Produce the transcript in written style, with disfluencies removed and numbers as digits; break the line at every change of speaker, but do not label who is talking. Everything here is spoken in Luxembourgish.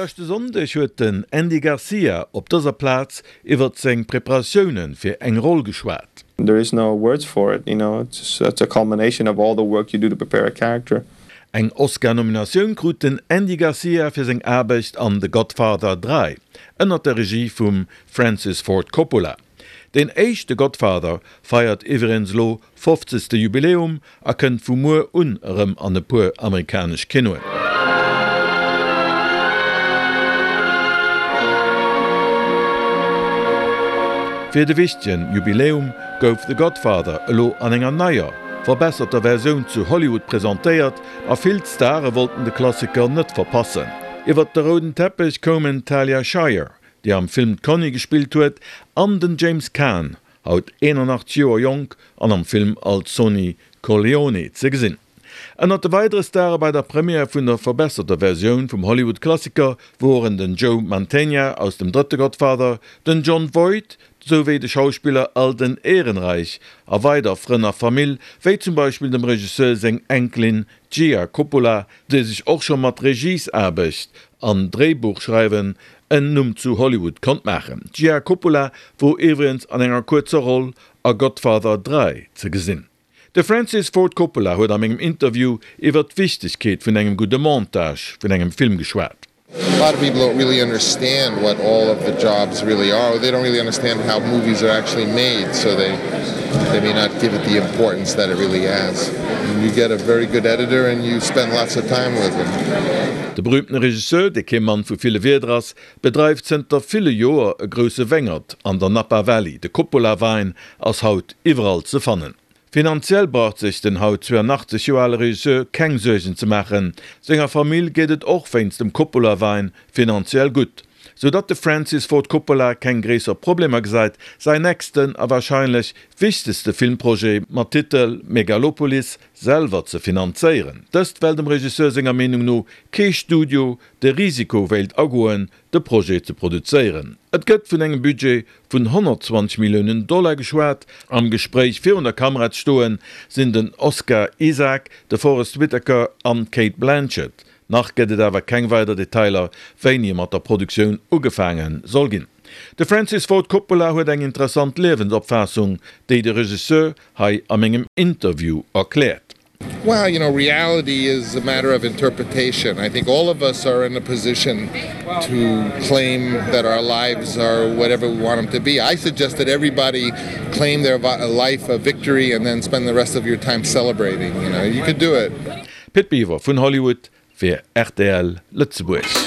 Leschte Sonndeg huet den Andy Garcia op dëser Plaz iwwert seng Preparatioune fir eng Roll geschwat.
There is no words for it, you know, it's it's a culmination of all the work you do to prepare a character.
Eng Oscar-Nominatioun krut den Andy Garcia fir seng Aarbecht an The Godfather 3 ënnert der Regie vum Francis Ford Coppola. Deen éischte Godfather feiert iwwregens lo fofzegste Jubiläum a kënnt vu muer un erëm an e puer amerikanesch Kinoen. Fir de wichtegen Jubiläum gouf The Godfather elo an enger neier, verbesserter Versioun zu Hollywood presentéiert a vill Stare wollten de Klassiker net verpassen. Iwwert de rouden Teppech koumen d'Talia Shire, déi am Film d'Connie gespillt huet, an den James Caan, haut 81 Joer jonk an am Film als Sonny Corleone ze gesinn. Ënnert de weidere Stare bei der Première vun der verbesserter Versioun vum Hollywood-Klassiker woren den Joe Mantegna aus dem drëtte Godfather, den Jon Voight, souwéi de Schauspiller Alden Ehrenreich a weider Frënn a Famill, wéi zum Beispill dem Regisseur seng Enkelin Gia Coppola, déi sech och scho mat Regiesaarbecht an Dréibuchschreiwen en Numm zu Hollywood konnt maachen. D'Gia Coppola wor iwwregens an enger kuerzer Roll a Godfather 3 ze gesinn. De Francis Ford Coppola huet a mengem Interview iwwer d'Wichtegkeet vun engem gudde Montage vun engem Film geschwat.
A lot of people don't really understand what all of the jobs really are, or they don't really understand how movies are actually made, so they they may not give it the importance that it really has. You get a very good editor and you spend lots of time with him.
De berüümtene Regisseur, dee kee Mann vu ville Wierder ass, bedreift zënter ville Joer e grousse Wéngert an der Napa Valley. De Coppola Wäin ass haut iwwerall ze fannen. Finanziell braucht sech den haut 82 Joer ale Regisseur keng Suergen ze maachen. Senger Famill geet et och wéinst dem Coppola-Wäin finanziell gutt. Sou datt de Francis Ford Coppola keng gréisser Problemer gesäit, säin nächsten a warscheinlech wichtegste Filmprojet mat Titel Megalopolis selwer ze finanzéieren. Dëst well dem Regisseur senger Meenung no kee Studio de Risiko wéilt agoen, de Projet ze produzéieren. Et gëtt vun engem Budget vun 120 Milliounen Dollar geschwat. Am Gespréich virun der Kamera ze stoen, sinn den Oscar Isaac, de Forest Whitaker an d'Cate Blanchett. Nach gëtt et awer keng weider Detailer, wéini mat der Produktioun ugefaange soll ginn. De Francis Ford Coppola huet eng interessant Liewensopfaassung, déi de Regisseur hei a mengem Interview erkläert.
Well, you know, reality is a matter of interpretation. I think all of us are in a position to claim that our lives are whatever we want them to be. I suggest that everybody claim their life a victory and then spend the rest of your time celebrating. You know, you could do it.
Pit Biwer vun Hollywood fir rtl Lëtzebuerg.